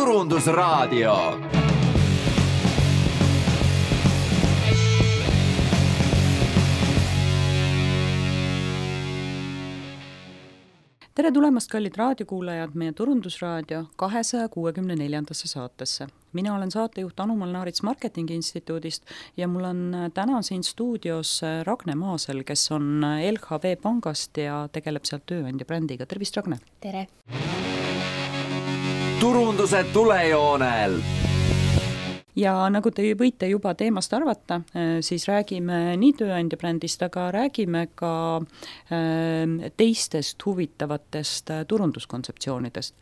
Turundusraadio. Tere tulemast, kallid raadiokuulajad, meie Turundusraadio 264. saatesse. Mina olen saatejuht Anu Molnaarits Marketingi Instituudist ja mul on täna siin stuudios Ragne Maasel, kes on LHV Pangast ja tegeleb sealt tööandja brändiga. Tervist, Ragne! Tere! Turunduse tulejoonel! Ja nagu te võite juba teemast arvata, siis räägime nii tööandja brändist, aga räägime ka teistest huvitavatest turunduskontseptsioonidest.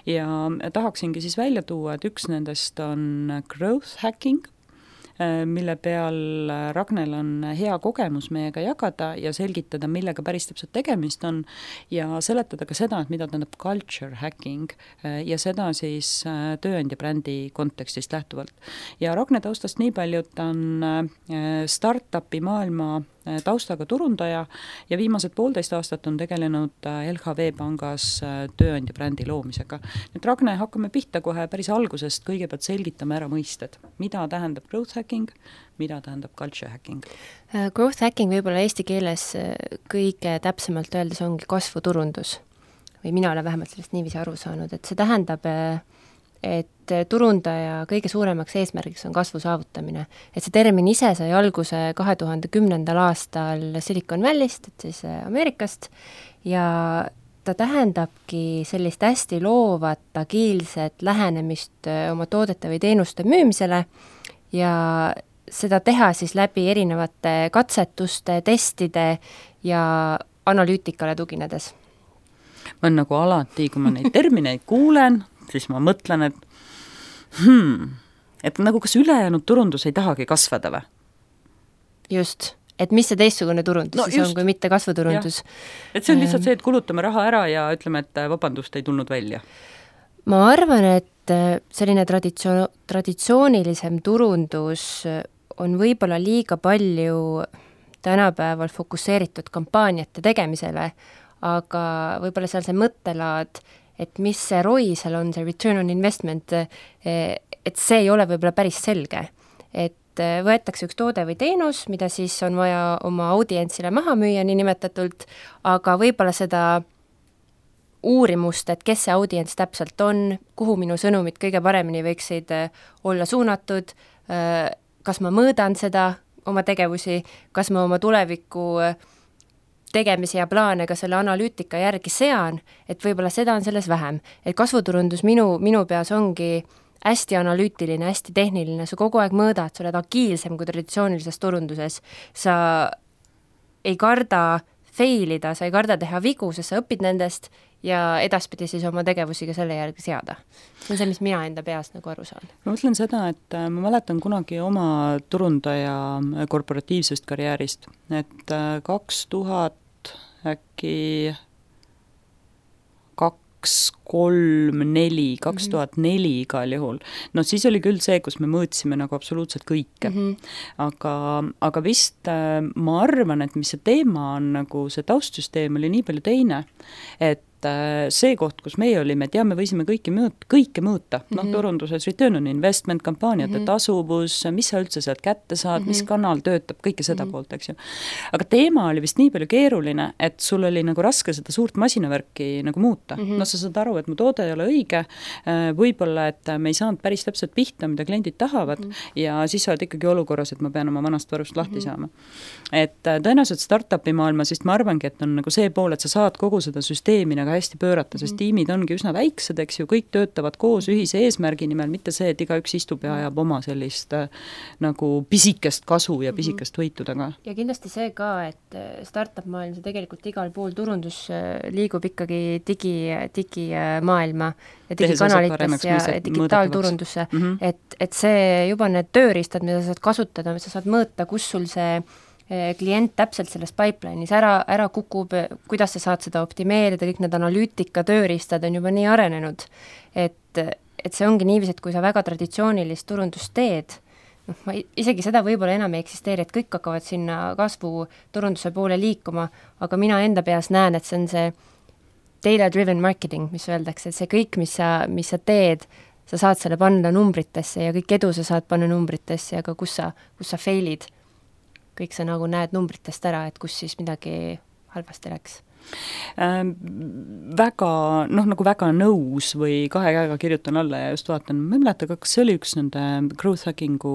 Ja tahaksingi siis välja tuua, et üks nendest on growth hacking, mille peal Ragnel on hea kogemus meiega jagada ja selgitada, millega päris täpselt tegemist on ja seletada ka seda, et mida tähendab culture hacking ja seda siis tööandja brändi kontekstist lähtuvalt. Ja Ragne taustast nii palju, et ta on startupi maailma taustaga turundaja ja viimased 1,5 aastat on tegelenud LHV Pangas tööandja brändi loomisega. Nüüd Ragne, hakkame pihta kohe päris algusest, kõigepealt selgitame ära mõisted. Mida tähendab growth hacking, mida tähendab culture hacking? Growth hacking võib-olla eesti keeles kõige täpsemalt öeldes ongi kasvuturundus. Või mina olen vähemalt sellest niiviisi aru saanud, et see tähendab, et turundaja kõige suuremaks eesmärgiks on kasvu saavutamine. Et see termin ise sai alguse 2010. aastal Silicon Valley'st, et siis Ameerikast, ja ta tähendabki sellist hästi loovat, agiilset lähenemist oma toodete või teenuste müümisele ja seda teha siis läbi erinevate katsetuste, testide ja analüütikale tuginedes. Ma on nagu alati, kui ma neid termineid kuulen, siis ma mõtlen, et nagu kas ülejäänud turundus ei tahagi kasvada või? Just, et mis see teistsugune turundus siis on, kui mitte kasvuturundus. Et see on lihtsalt see, et kulutame raha ära ja ütleme, et vabandust ei tulnud välja. Ma arvan, et selline traditsioonilisem turundus on võib-olla liiga palju tänapäeval fokusseeritud kampaaniate tegemisele, aga võib-olla seal see mõttelaad, et mis see ROI seal on, see return on investment, et see ei ole võib-olla päris selge. Et võetakse üks toode või teenus, mida siis on vaja oma audientsile maha müüa nii nimetatult, aga võib-olla seda uurimust, et kes see audients täpselt on, kuhu minu sõnumid kõige paremini võiksid olla suunatud, kas ma mõõdan seda oma tegevusi, kas ma oma tuleviku tegemisi ja plaane ka selle analüütika järgi sean, et võib-olla seda on selles vähem. Et kasvuturundus minu peas ongi hästi analüütiline, hästi tehniline, sa kogu aeg mõõdad, sa oled agiilsem kui traditsioonilises turunduses, sa ei karda failida, sa ei karda teha vigu, sest sa õpid nendest ja edaspidi siis oma tegevusi ka selle järgi seada. See on see, mis mina enda peast nagu aru saan. Ma mõtlen seda, et ma mäletan kunagi oma turundaja korporatiivsest karjäärist, et 2000 äkki 2004 igal juhul. No siis oli küll see, kus me mõõtsime nagu absoluutselt kõike. Aga vist ma arvan, et mis see teema on, nagu see taustsüsteem oli nii palju teine, et see koht, kus meie olime, me võisime kõike mõõta. Turunduses return on investment, kampaaniate tasuvus, mis sa üldse sealt kätte saad, mis kanal töötab, kõike seda poolt, eks ju. Aga teema oli vist nii palju keeruline, et sul oli nagu raske seda suurt masinavärki nagu muuta. No sa saad aru, et mu toode ei ole õige, võib-olla, et me ei saanud päris täpselt pihta, mida kliendid tahavad ja siis sa oled ikkagi olukorras, et ma pean oma vanast varust lahti saama. Et tõenäoliselt startupi maailma, sest ma arvangi, et on nagu see pool, et sa saad kogu seda süsteemi nagu hästi pöörata, sest tiimid ongi üsna väiksed, eks ju, kõik töötavad koos ühise eesmärgi nimel, mitte see, et igaüks istub ja ajab oma sellist nagu pisikest kasu ja pisikest võitu taga. Ja kindlasti see ka, et startup maailm, see tegelikult igal pool turundus liigub ikkagi digimaailma ja digikanalites ja digitaalturundusse, et see juba need tööriistad, mida sa saad kasutada, sa saad mõõta, kus sul see klient täpselt selles pipeline'is ära kukub, kuidas sa saad seda optimeerida, kõik need analüütika tööriistad on juba nii arenenud, et see ongi niiviisi, et kui sa väga traditsioonilist turundust teed, ma isegi seda võib-olla enam ei eksisteeri, et kõik hakkavad sinna kasvu turunduse poole liikuma, aga mina enda peas näen, et see on see data-driven marketing, mis öeldakse, et see kõik, mis sa teed, sa saad selle panna numbritesse ja kõik edu sa saad panna numbritesse, aga kus sa fail'id, kõik sa nagu näed numbritest ära, et kus siis midagi halvasti läks. Väga, nagu väga nõus või kahe käega kirjutan alla ja just vaatan, ma ei mäleta, kas see oli üks nende growth hackingu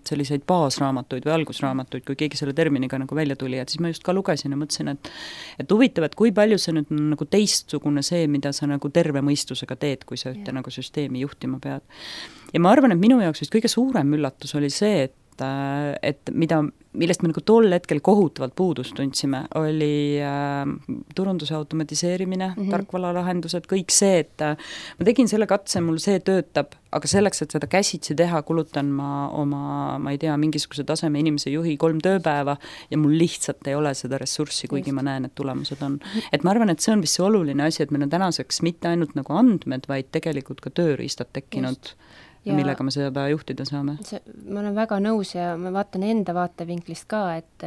selliseid baasraamatuid või algusraamatuid, kui keegi selle terminiga nagu välja tuli, et siis ma just ka lugesin ja mõtlesin, et huvitav, et kui palju see nüüd nagu teistsugune see, mida sa nagu terve mõistusega teed, kui sa ühte nagu süsteemi juhtima pead. Ja ma arvan, et minu jaoks vist kõige suurem üllatus oli see, et millest me nagu tol hetkel kohutavalt puudust tundsime, oli turunduse automatiseerimine, tarkvaralahendused, kõik see, et ma tegin selle katse, mul see töötab, aga selleks, et seda käsitsi teha, kulutan ma ei tea, mingisuguse taseme inimese juhi 3 tööpäeva ja mul lihtsalt ei ole seda ressurssi, kuigi ma näen, et tulemused on. Et ma arvan, et see on vist see oluline asi, et meil on tänaseks mitte ainult nagu andmed, vaid tegelikult ka tööriistad tekkinud. Ja millega me seda juhtida saame? Ma olen väga nõus ja ma vaatan enda vaatevinklist ka, et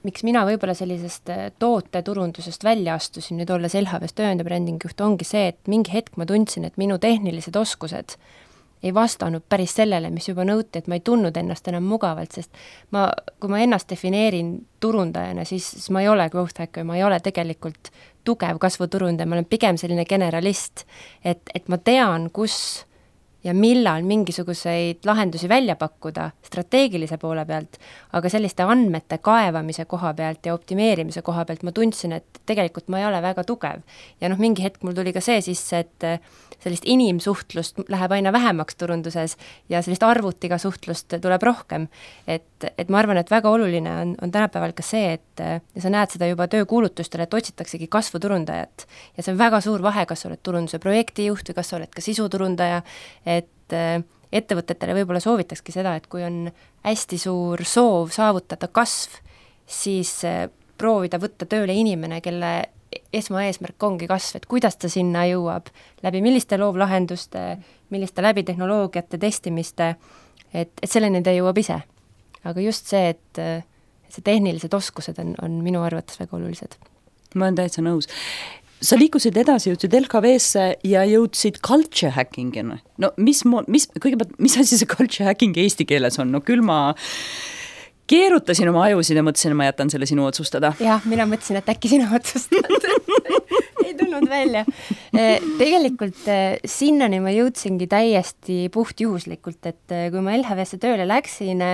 miks mina võib-olla sellisest tooteturundusest välja astusin, nüüd olles LHV tööandja brändingjuht, ongi see, et mingi hetk ma tundsin, et minu tehnilised oskused ei vastanud päris sellele, mis juba nõuti, et ma ei tundnud ennast enam mugavalt, sest kui ma ennast defineerin turundajana, siis ma ei ole growth hacker, ma ei ole tegelikult tugev kasvuturundaja, ma olen pigem selline generalist, et ma tean, kus ja millal mingisuguseid lahendusi välja pakkuda strateegilise poole pealt, aga selliste andmete kaevamise koha pealt ja optimeerimise koha pealt ma tundsin, et tegelikult ma ei ole väga tugev. Ja mingi hetk mul tuli ka see sisse, et sellist inimsuhtlust läheb aina vähemaks turunduses ja sellist arvutiga suhtlust tuleb rohkem. Et ma arvan, et väga oluline on tänapäeval ka see, et ja sa näed seda juba töökuulutustele, et otsitaksegi kasvuturundajat. Ja see on väga suur vahe, kas sa oled turunduse projektijuht või kas sa oled ka sisuturundaja, et ettevõtetele võib-olla soovitakski seda, et kui on hästi suur soov saavutada kasv, siis proovida võtta tööle inimene, kelle esmaeesmärk ongi kasv, et kuidas ta sinna jõuab, läbi milliste loovlahenduste, milliste läbi tehnoloogiate testimiste, et selleni ta jõuab ise. Aga just see, et see tehnilised oskused on minu arvates väga olulised. Ma olen täitsa nõus. Sa liikusid edasi, jõudsid LKV-sse ja jõudsid culture hackingina. No mis asi see culture hacking eesti keeles on? No küll ma keerutasin oma ajusid ja mõtlesin, et ma jätan selle sinu otsustada. Jah, mina mõtlesin, et äkki sina otsustad. Ei tulnud välja. Tegelikult sinnani ma jõudsingi täiesti puhtjuhuslikult, et kui ma LHV-sse tööle läksin,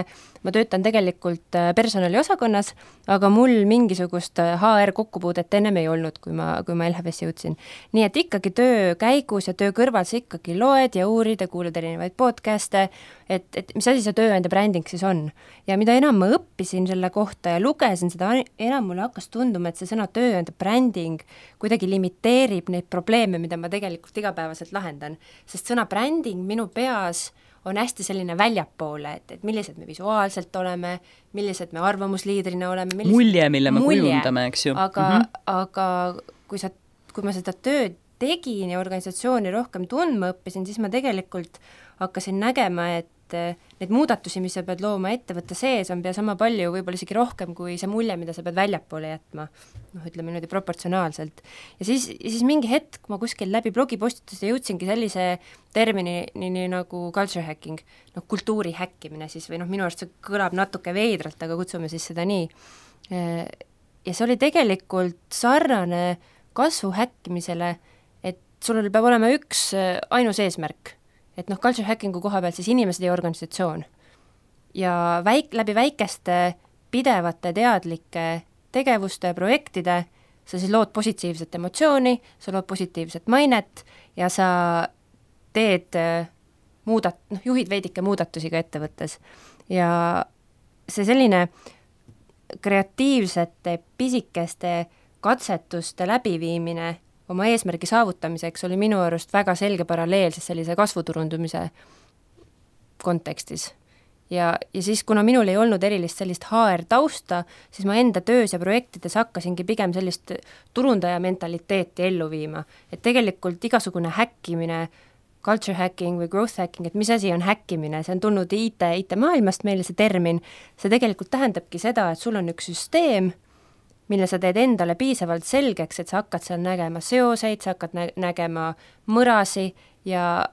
ma töötan tegelikult personaliosakonnas, aga mul mingisugust HR kokkupuudet ennem ei olnud, kui ma LHV-sse jõudsin. Nii et ikkagi töö käigus ja töö kõrval sa ikkagi loed ja uurid ja kuulad erinevaid podcast'e, et mis asi see tööandja bränding siis on. Ja mida enam ma õppisin selle kohta ja lugesin seda, enam mulle hakkas tunduma, et see sõna tööandja bränding kuidagi limiteerib neid probleeme, mida ma tegelikult igapäevaselt lahendan. Sest sõna bränding minu peas on hästi selline väljapoole, et millised me visuaalselt oleme, millised me arvamusliidrina oleme. Mulje, mille me kujundame, eks ju. Aga kui ma seda tööd tegin ja organisatsiooni rohkem tundma õppisin, siis ma tegelikult hakkasin nägema, et need muudatusi, mis sa pead looma ettevõtte sees, on pea sama palju, võib-olla isegi rohkem kui see mulje, mida sa pead väljapoole jätma. Ütleme niimoodi proportsionaalselt. Ja siis mingi hetk ma kuskil läbi blogipostituse jõudsingi sellise termini nagu culture hacking, kultuuri häkkimine siis, või minu arust see kõlab natuke veidralt, aga kutsume siis seda nii. Ja see oli tegelikult sarnane kasvu häkkimisele, et sul peab olema üks ainus eesmärk, et culture hackingu koha pealt siis inimesed ja organisatsioon. Ja läbi väikeste pidevate teadlike tegevuste ja projektide sa siis lood positiivset emotsiooni, sa lood positiivset mainet ja sa teed juhid veidike muudatusi ka ettevõttes. Ja see selline kreatiivsete pisikeste katsetuste läbiviimine oma eesmärgi saavutamiseks oli minu arust väga selge paralleel sellise kasvuturundumise kontekstis. Ja siis, kuna minul ei olnud erilist sellist HR tausta, siis ma enda töös ja projektides hakkasingi pigem sellist turundaja mentaliteeti ellu viima. Et tegelikult igasugune häkkimine, culture hacking või growth hacking, et mis asi on häkkimine, see on tulnud IT maailmast meile see termin, see tegelikult tähendabki seda, et sul on üks süsteem, mille sa teed endale piisavalt selgeks, et sa hakkad seal nägema seoseid, sa hakkad nägema mõrasi ja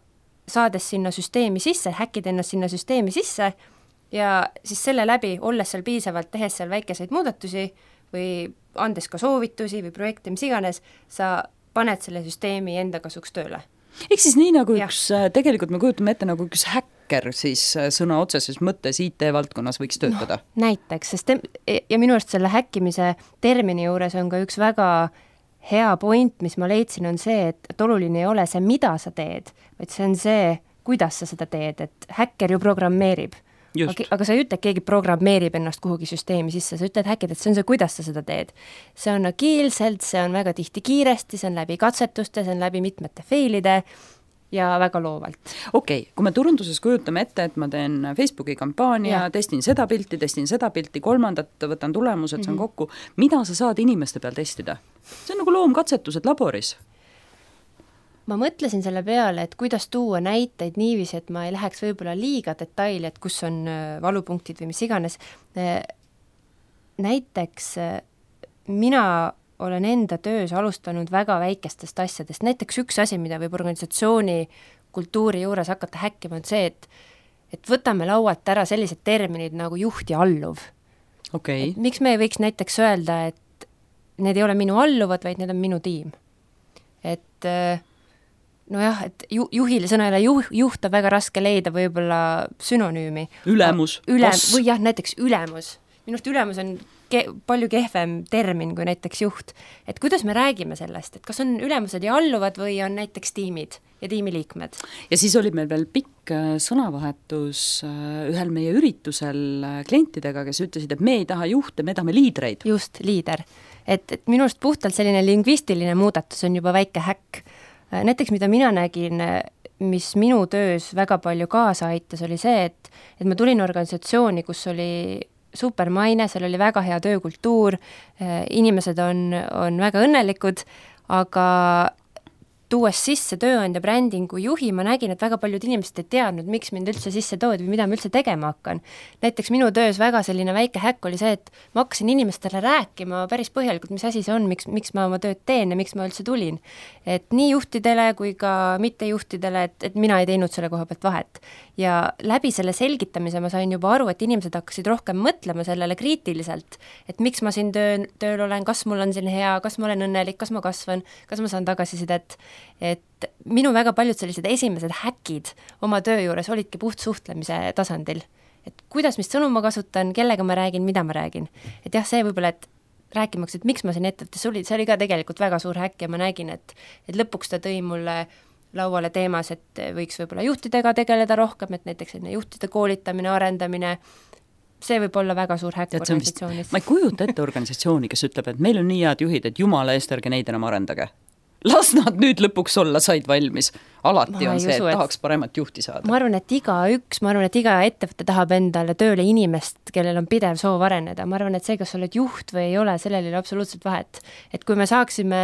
saades sinna süsteemi sisse, häkkid ennast sinna süsteemi sisse ja siis selle läbi, olles seal piisavalt, tehes seal väikeseid muudatusi või andes ka soovitusi või projekte, mis iganes, sa paned selle süsteemi enda kasuks tööle. Ehk siis nii nagu tegelikult me kujutame ette nagu üks häkker siis sõna otseses mõttes IT-valdkonnas võiks töötada. No, näiteks, sest ja minu arust selle häkkimise termini juures on ka üks väga hea point, mis ma leidsin, on see, et oluline ei ole see, mida sa teed, vaid see on see, kuidas sa seda teed, et häkker ju programmeerib. Aga sa ei ütle, et keegi programmeerib ennast kuhugi süsteemi sisse, sa ütled häkid, et see on see, kuidas sa seda teed. See on agiilselt, see on väga tihti kiiresti, see on läbi katsetuste, see on läbi mitmete failide ja väga loovalt. Okei, kui me turunduses kujutame ette, et ma teen Facebooki kampaania, testin seda pilti, kolmandat, võtan tulemused, see on kokku. Mida sa saad inimeste peal testida? See on nagu loomkatsetused laboris. Ma mõtlesin selle peale, et kuidas tuua näiteid niiviisi, et ma ei läheks võib-olla liiga detaili, et kus on valupunktid või mis iganes. Näiteks mina olen enda töös alustanud väga väikestest asjadest. Näiteks üks asi, mida võib organisatsiooni kultuuri juures hakata häkkima, on see, et võtame laualt ära sellised terminid nagu juht ja alluv. Okay. Miks me ei võiks näiteks öelda, et need ei ole minu alluvad, vaid need on minu tiim. Et nojah, et juhile sõnale juht on väga raske leida võib-olla sünonüümi. Ülemus. Või jah, näiteks ülemus. Minust ülemus on palju kehvem termin kui näiteks juht. Et kuidas me räägime sellest, et kas on ülemused ja alluvad või on näiteks tiimid ja tiimiliikmed? Ja siis oli meil veel pikk sõnavahetus ühel meie üritusel klientidega, kes ütlesid, et me ei taha juhte, me tahame liidreid. Just, liider. Et minust puhtalt selline lingvistiline muudatus on juba väike häkk. Näiteks, mida mina nägin, mis minu töös väga palju kaasa aitas, oli see, et ma tulin organisatsiooni, kus oli supermaine, seal oli väga hea töökultuur, inimesed on väga õnnelikud, aga tuues sisse tööandja brändingu juhi, ma nägin, et väga paljud inimesed ei teadnud, miks mind üldse sisse toodi või mida ma üldse tegema hakkan. Näiteks minu töös väga selline väike häkk oli see, et ma hakkasin inimestele rääkima päris põhjalikult, mis asi see on, miks ma oma tööd teen ja miks ma üldse tulin. Et nii juhtidele kui ka mittejuhtidele, et mina ei teinud selle koha pealt vahet. Ja läbi selle selgitamise ma sain juba aru, et inimesed hakkasid rohkem mõtlema sellele kriitiliselt, et miks ma siin tööl olen, kas mul on siin hea, kas ma olen õnnelik, kas ma kasvan, kas ma saan tagasisidet. Et minu väga paljud sellised esimesed häkid oma töö juures olidki puht suhtlemise tasandil. Et kuidas, mis sõnu ma kasutan, kellega ma räägin, mida ma räägin. Et jah, see võib-olla, et rääkimaks, et miks ma siin ettevõttes olin, see oli ka tegelikult väga suur häkk ja ma nägin, et lõpuks ta tõi mulle lauale teemas, et võiks võib-olla juhtidega tegeleda rohkem, et näiteks juhtide koolitamine, arendamine, see võib olla väga suur häkk organisatsioonis. Ma ei kujuta ette organisatsiooni, kes ütleb, et meil on nii head juhid, et jumala eest ärge neid enam arendage. Las nad nüüd lõpuks olla, said valmis. Alati on see, et tahaks paremat juhti saada. Ma arvan, et iga ettevõte tahab endale tööle inimest, kellel on pidev soov areneda. Ma arvan, et see, kas oled juht või ei ole, sellel ei ole absoluutselt vahet. Et kui me saaksime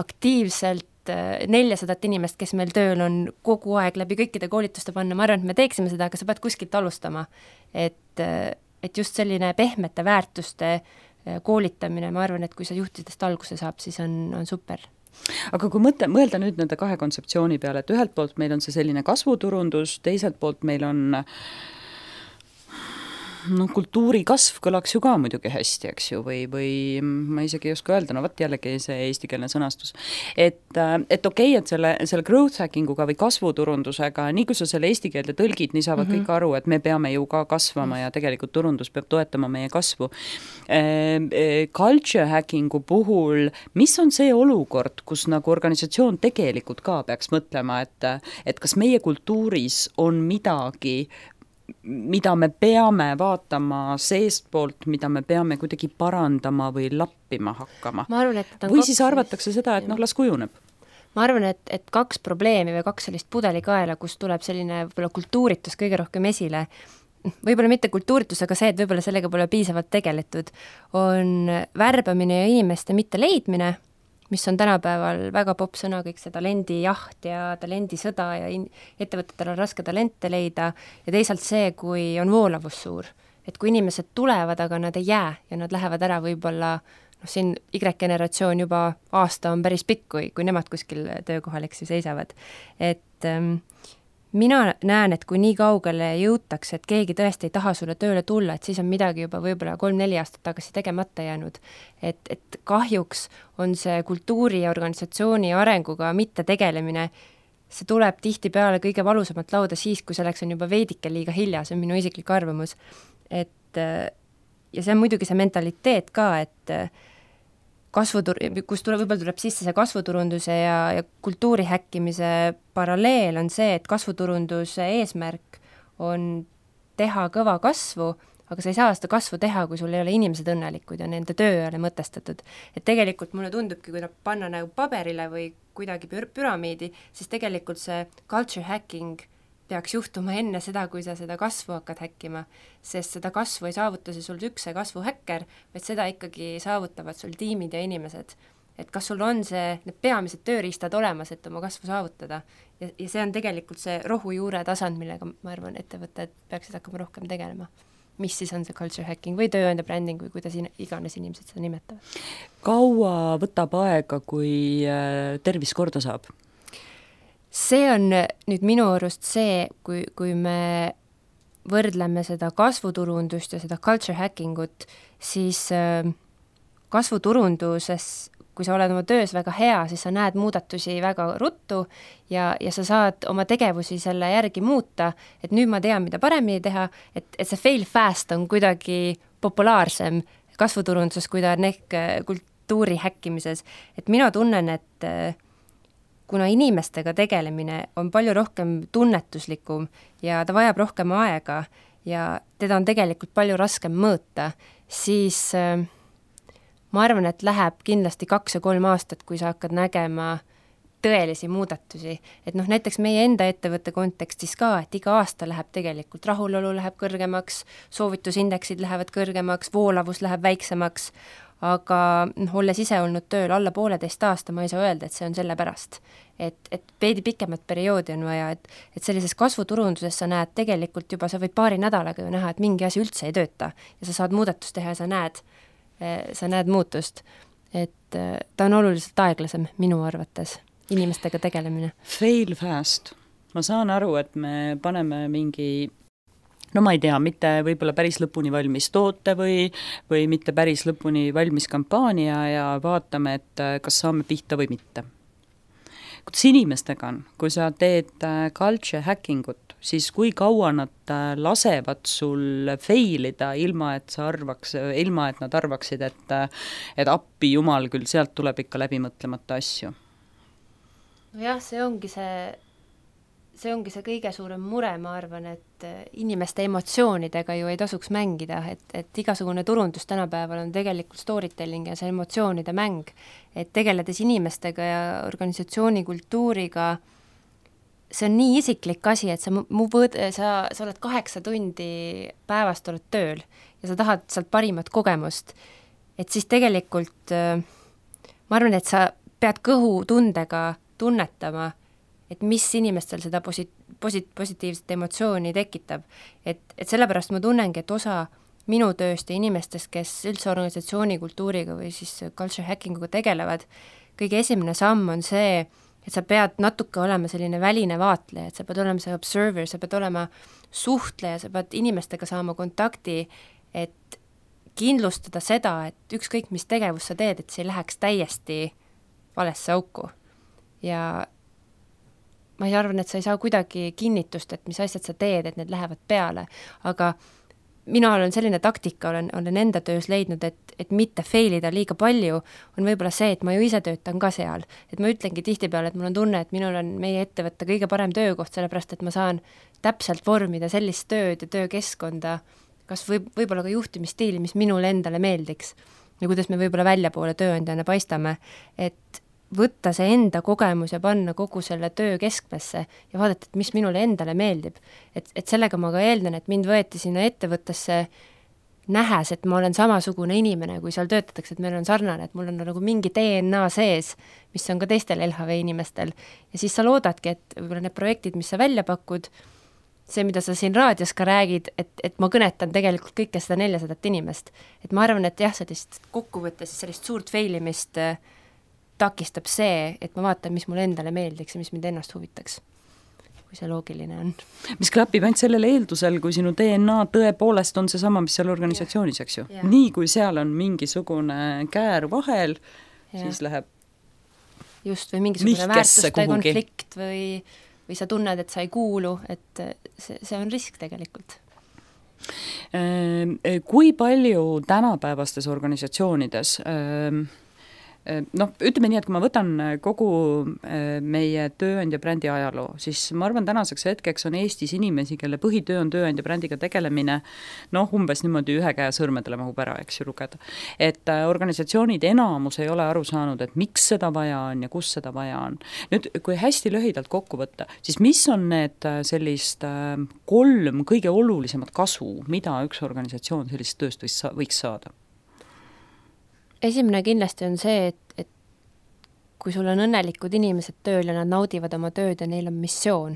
aktiivselt 400 inimest, kes meil tööl on kogu aeg läbi kõikide koolituste panna, ma arvan, et me teeksime seda, aga sa pead kuskilt alustama. Et just selline pehmete väärtuste koolitamine, ma arvan, et kui sa juhtidest alguse saab, siis on super. Aga kui mõelda nüüd nende kahe kontseptsiooni peale, et ühelt poolt meil on see selline kasvuturundus, teiselt poolt meil on kultuuri kasv kõlaks ju ka muidugi hästi, eks ju, või ma isegi ei oska öelda, no võt jällegi see eestikeelne sõnastus. Et okei, et selle growth hackinguga või kasvuturundusega, nii kui sa selle eesti keelde tõlgid, nii saavad kõik aru, et me peame ju ka kasvama ja tegelikult turundus peab toetama meie kasvu. Culture hackingu puhul, mis on see olukord, kus nagu organisatsioon tegelikult ka peaks mõtlema, et kas meie kultuuris on midagi, mida me peame vaatama seestpoolt, mida me peame kuidagi parandama või lappima hakkama. Või siis arvatakse seda, et las kujuneb. Ma arvan, et kaks probleemi või kaks sellist pudelikaela, kus tuleb selline võib-olla kultuuritus kõige rohkem esile, võib-olla mitte kultuuritus, aga see, et võib-olla sellega pole piisavalt tegeletud, on värbamine ja inimeste mitte leidmine, mis on tänapäeval väga popp sõna, kõik see talendijaht ja talendisõda ja ettevõtetel on raske talente leida ja teisalt see, kui on voolavus suur. Et kui inimesed tulevad, aga nad ei jää ja nad lähevad ära võib-olla, siin Y-generatsioon juba aasta on päris pikk, kui nemad kuskil töökohal seisavad. Et mina näen, et kui nii kaugele jõutakse, et keegi tõesti ei taha sulle tööle tulla, et siis on midagi juba võib-olla 3-4 aastat tagasi tegemata jäänud. Et kahjuks on see kultuuri ja organisatsiooni arenguga mitte tegelemine, see tuleb tihtipeale kõige valusamalt lauda siis, kui selleks on juba veidike liiga hilja, see on minu isiklik arvamus. Ja see on muidugi see mentaliteet ka, et kus võib-olla tuleb sisse see kasvuturunduse ja kultuuri häkkimise paralleel on see, et kasvuturunduse eesmärk on teha kõva kasvu, aga sa ei saa seda kasvu teha, kui sul ei ole inimesed õnnelikud ja nende töö ei ole mõtestatud. Et tegelikult mulle tundubki, kui panna nagu paberile või kuidagi püramiidi, siis tegelikult see culture hacking peaks juhtuma enne seda, kui sa seda kasvu hakkad häkkima, sest seda kasvu ei saavuta see sul üks kasvuhäkker, vaid seda ikkagi saavutavad sul tiimid ja inimesed. Et kas sul on need peamised tööriistad olemas, et oma kasvu saavutada. Ja see on tegelikult see rohujuure tasand, millega ma arvan, ettevõtted peaksid hakkama rohkem tegelema. Mis siis on see culture hacking või tööandja branding või kuidas iganes inimesed seda nimetavad. Kaua võtab aega, kui tervis korda saab? See on nüüd minu arust see, kui me võrdleme seda kasvuturundust ja seda culture hackingut, siis kasvuturunduses, kui sa oled oma töös väga hea, siis sa näed muudatusi väga ruttu ja sa saad oma tegevusi selle järgi muuta, et nüüd ma tean, mida paremini teha, et see fail fast on kuidagi populaarsem kasvuturunduses, kui ta on ehk kultuuri häkkimises. Et mina tunnen, et kuna inimestega tegelemine on palju rohkem tunnetuslikum ja ta vajab rohkem aega ja teda on tegelikult palju raskem mõõta, siis ma arvan, et läheb kindlasti 2 ja 3 aastat, kui sa hakkad nägema tõelisi muudatusi. Et näiteks meie enda ettevõtte kontekstis ka, et iga aasta läheb tegelikult rahulolu läheb kõrgemaks, soovitusindeksid lähevad kõrgemaks, voolavus läheb väiksemaks, aga olles ise olnud tööl alla 1,5 aasta, ma ei saa öelda, et see on selle pärast. Et veidi pikemat perioodi on vaja, et sellises kasvuturunduses sa näed tegelikult juba, sa võid 2 nädalaga ju näha, et mingi asi üldse ei tööta ja sa saad muudatust teha ja sa näed muutust. Et ta on oluliselt aeglasem minu arvates, inimestega tegelemine. Fail fast. Ma saan aru, et me paneme mingi no ma ei tea, mitte võib-olla päris lõpuni valmis toote või mitte päris lõpuni valmis kampaania ja vaatame, et kas saame pihta või mitte. Kuidas inimestega on, kui sa teed culture hackingut, siis kui kaua nad lasevad sul failida, ilma et nad arvaksid, et appi jumal küll, sealt tuleb ikka läbimõtlemata asju? Nojah, see ongi see kõige suurem mure, ma arvan, et inimeste emotsioonidega ju ei tasuks mängida, et igasugune turundus tänapäeval on tegelikult storytelling ja see emotsioonide mäng, et tegeledes inimestega ja organisatsiooni kultuuriga, see on nii isiklik asi, et sa oled 8 tundi päevast oled tööl ja sa tahad sealt parimat kogemust, et siis tegelikult ma arvan, et sa pead kõhutundega tunnetama, et mis inimestel seda positiivset emotsiooni tekitab. Et sellepärast ma tunnengi, et osa minu tööst ja inimestest, kes üldse organisatsiooni kultuuriga või siis culture hackinguga tegelevad, kõige esimene samm on see, et sa pead natuke olema selline väline vaatleja, et sa pead olema see observer, sa pead olema suhtleja, sa pead inimestega saama kontakti, et kindlustada seda, et ükskõik mis tegevus sa teed, et see ei läheks täiesti valesse auku. Ja ma arvan, et sa ei saa kuidagi kinnitust, et mis asjad sa teed, et need lähevad peale, aga mina olen selline taktika, olen enda töös leidnud, et mitte failida liiga palju, on võib-olla see, et ma ju ise töötan ka seal. Et ma ütlengi tihtipeale, et mul on tunne, et minul on meie ettevõtte kõige parem töökoht, sellepärast et ma saan täpselt vormida sellist tööd ja töökeskkonda, kas võib-olla ka juhtimisstiili, mis minule endale meeldiks ja kuidas me võib-olla väljapoole tööandjana paistame, et võtta see enda kogemus ja panna kogu selle töö keskmesse ja vaadata, et mis minule endale meeldib. Et sellega ma ka eeldan, et mind võeti sinna ettevõttesse nähes, et ma olen samasugune inimene, kui seal töötatakse, et meil on sarnane, et mul on nagu mingi DNA sees, mis on ka teistel LHV inimestel. Ja siis sa loodadki, et võib-olla need projektid, mis sa välja pakud, see, mida sa siin raadios ka räägid, et ma kõnetan tegelikult kõike seda 400 inimest. Et ma arvan, et jah, sellist kokkuvõttes sellist suurt failimist takistab see, et ma vaatan, mis mulle endale meeldiks ja mis mind ennast huvitaks. kui see loogiline on. Mis klapib ainult sellel eeldusel, kui sinu DNA tõepoolest on see sama, mis seal organisatsioonis, eks ju. Nii kui seal on mingisugune käär vahel, siis läheb just, või mingisugune väärtuste konflikt või sa tunned, et sa ei kuulu, et see on risk tegelikult. Kui palju tänapäevastes organisatsioonides ütleme nii, et kui ma võtan kogu meie tööandja brändi ajaloo, siis ma arvan, tänaseks hetkeks on Eestis inimesi, kelle põhitöö on tööandja brändiga tegelemine, umbes niimoodi ühe käe sõrmedele mahub ära, eks ju, lugeda. Et organisatsioonid enamus ei ole aru saanud, et miks seda vaja on ja kus seda vaja on. Nüüd, kui hästi lühidalt kokku võtta, siis mis on need sellist 3 kõige olulisemat kasu, mida üks organisatsioon sellist tööst võiks saada? Esimene kindlasti on see, et kui sul on õnnelikud inimesed tööl ja nad naudivad oma tööd ja neil on missioon,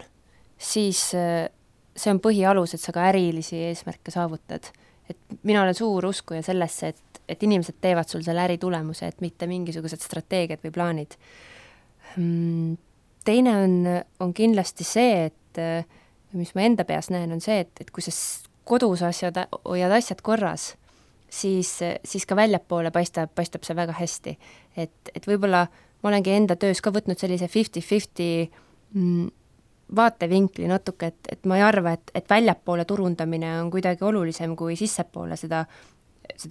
siis see on põhialus, et sa ka ärilisi eesmärke saavutad. Et mina olen suur uskuja sellesse, et inimesed teevad sul selle äritulemuse, et mitte mingisugused strateegiad või plaanid. Teine on kindlasti see, et mis ma enda peas näen, on see, et kui sa kodus hoiad asjad korras, siis ka väljapoole paistab see väga hästi. Et võib-olla ma olengi enda töös ka võtnud sellise 50-50 vaatevinkli natuke, et ma ei arva, et väljapoole turundamine on kuidagi olulisem kui sissepoole seda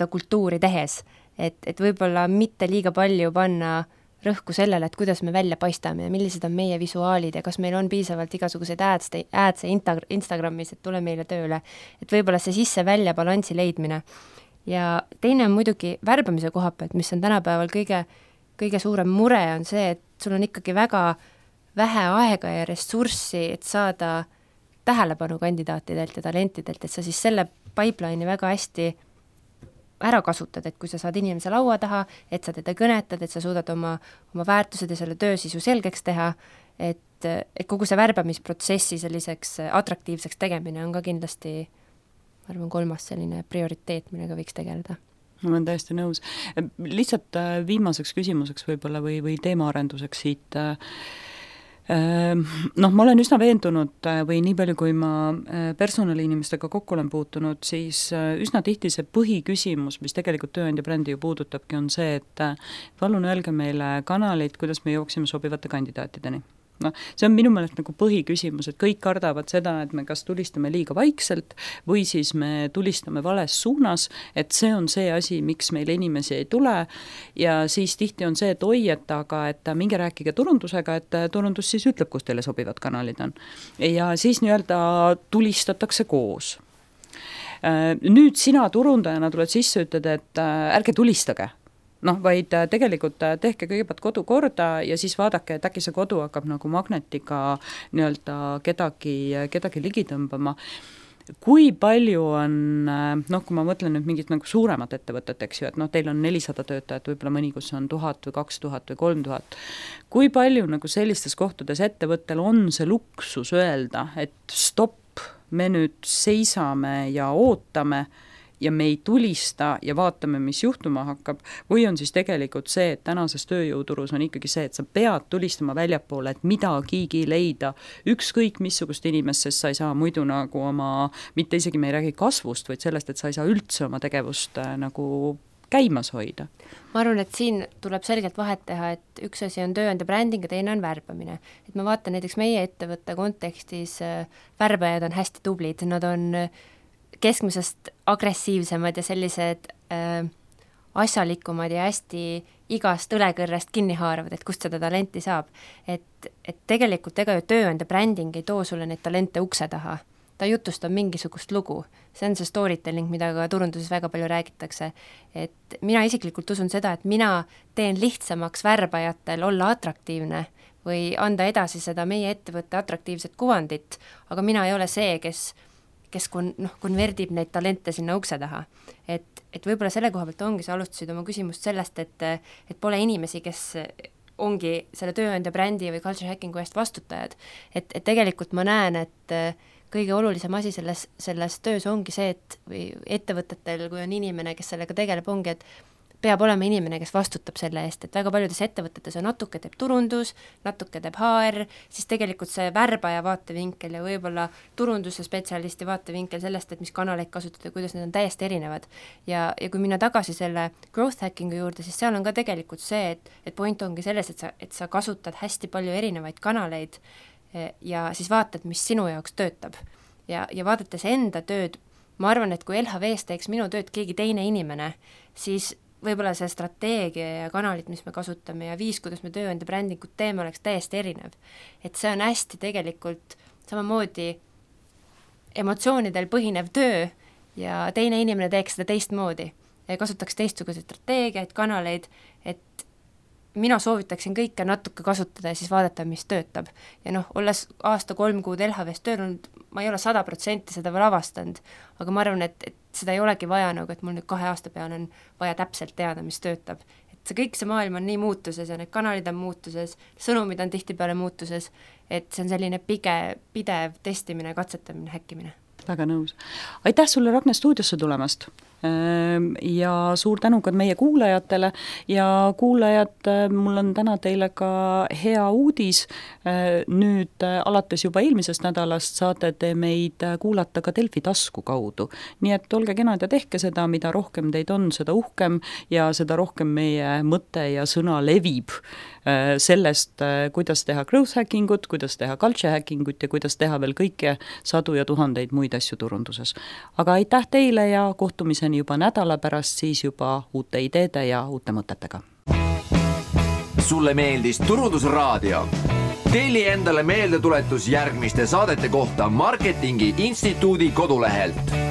kultuuri tehes. Et võib-olla mitte liiga palju panna rõhku sellele, et kuidas me välja paistame ja millised on meie visuaalid ja kas meil on piisavalt igasuguseid ads Instagramis, et tule meile tööle. Et võib-olla see sisse-välja balansi leidmine. Ja teine on muidugi värbamise koha pealt, mis on tänapäeval kõige suurem mure, on see, et sul on ikkagi väga vähe aega ja ressurssi, et saada tähelepanu kandidaatidelt ja talentidelt, et sa siis selle pipeline'i väga hästi ära kasutad, et kui sa saad inimese laua taha, et sa teda kõnetad, et sa suudad oma väärtused ja selle töösisu selgeks teha, et kogu see värbamisprotsessi selliseks atraktiivseks tegemine on ka kindlasti ma arvan 3. selline prioriteet, millega võiks tegeleda. Ma olen täiesti nõus. Lihtsalt viimaseks küsimuseks võib-olla või teemaarenduseks siit. Ma olen üsna veendunud või nii palju, kui ma personaliinimestega kokku olen puutunud, siis üsna tihti see põhiküsimus, mis tegelikult tööandja brändi ju puudutabki, on see, et palun öelge meile kanaleid, kuidas me jooksime sobivate kandidaatideni. See on minu meelest nagu põhiküsimus, et kõik kardavad seda, et me kas tulistame liiga vaikselt või siis me tulistame vales suunas, et see on see asi, miks meil inimesi ei tule ja siis tihti on see, et oi, et minge rääkige turundusega, et turundus siis ütleb, kus teile sobivad kanalid on. Ja siis nii-öelda tulistatakse koos. Nüüd sina turundajana tuled sisse, ütled, et ärge tulistage. Vaid tegelikult tehke kõigepealt kodu korda ja siis vaadake, et äkki see kodu hakkab nagu magnetiga nii-öelda kedagi ligi tõmbama. Kui palju on, kui ma mõtlen nüüd mingit nagu suuremat ettevõtet, eks ju, et teil on 400 töötajat, võib-olla mõni, kus on 1000 või 2000 või 3000. Kui palju nagu sellistes kohtades ettevõttel on see luksus öelda, et stopp, me nüüd seisame ja ootame ja me ei tulista ja vaatame, mis juhtuma hakkab, või on siis tegelikult see, et tänases tööjõuturus on ikkagi see, et sa pead tulistama väljapoole, et midagigi leida, ükskõik missugust inimest, sest sa ei saa muidu nagu mitte isegi me ei räägi kasvust, vaid sellest, et sa ei saa üldse oma tegevust nagu käimas hoida. Ma arvan, et siin tuleb selgelt vahet teha, et üks asi on tööandja bränding ja teine on värbamine. Et ma vaatan näiteks meie ettevõtte kontekstis, värbajad on hästi tublid, nad on keskmisest agressiivsemad ja sellised asjalikumad ja hästi igast õlekõrrest kinni haaravad, et kust seda talenti saab. Et tegelikult ega ju tööandja bränding ei too sulle neid talente ukse taha. Ta jutustab mingisugust lugu. See on see storytelling, mida ka turunduses väga palju räägitakse. Et mina isiklikult usun seda, et mina teen lihtsamaks värbajatel olla atraktiivne või anda edasi seda meie ettevõtte atraktiivset kuvandit, aga mina ei ole see, kes konverdib neid talente sinna ukse taha. Et võib-olla selle koha pealt ongi, sa alustasid oma küsimust sellest, et pole inimesi, kes ongi selle tööandja brändi või culture hackingu eest vastutajad. Et tegelikult ma näen, et kõige olulisem asi selles töös ongi see, et või ettevõtetel, kui on inimene, kes sellega tegeleb, ongi, et peab olema inimene, kes vastutab selle eest, et väga paljudes ettevõtetes on natuke teeb turundus, natuke teeb HR, siis tegelikult see värbaja vaatevinkel ja võib-olla turunduse spetsialisti vaatevinkel sellest, et mis kanaleid kasutada, kuidas need on täiesti erinevad. Ja kui minna tagasi selle growth hacking'u juurde, siis seal on ka tegelikult see, et point ongi selles, et sa kasutad hästi palju erinevaid kanaleid ja siis vaatad, mis sinu jaoks töötab. Ja vaadates enda tööd, ma arvan, et kui LHV-s teeks minu tööd keegi teine inimene, siis võib-olla see strateegia ja kanalid, mis me kasutame ja viis, kuidas me tööandja brändingut teeme, oleks täiesti erinev. Et see on hästi tegelikult samamoodi emotsioonidel põhinev töö ja teine inimene teeks seda teistmoodi ja kasutaks teistsuguseid strateegiaid, kanaleid, et mina soovitaksin kõike natuke kasutada ja siis vaadata, mis töötab. Ja olles aasta 3 kuud LHV-s tööl olnud, ma ei ole 100% seda veel avastanud, aga ma arvan, et seda ei olegi vaja et mul nüüd 2 aasta peale on vaja täpselt teada, mis töötab. Et see maailm on nii muutuses ja need kanalid on muutuses, sõnumid on tihtipeale muutuses, et see on selline pidev testimine, katsetamine, häkkimine. Väga nõus. Aitäh sulle, Ragne, stuudiosse tulemast! Ja suur tänu ka meie kuulajatele ja kuulajad, mul on täna teile ka hea uudis. Nüüd alates juba eelmisest nädalast saate te meid kuulata ka Delfi tasku kaudu. Nii et olge kenad ja tehke seda, mida rohkem teid on, seda uhkem ja seda rohkem meie mõte ja sõna levib sellest, kuidas teha growth hackingut, kuidas teha culture hackingut ja kuidas teha veel kõike 100 ja 1000 muid asju turunduses. Aga aitäh teile ja kohtumiseni juba nädala pärast, siis juba uute ideede ja uute mõtetega. Sulle meeldis Turundusraadio? Telli endale meeldetuletus järgmiste saadete kohta Marketingi Instituudi kodulehelt.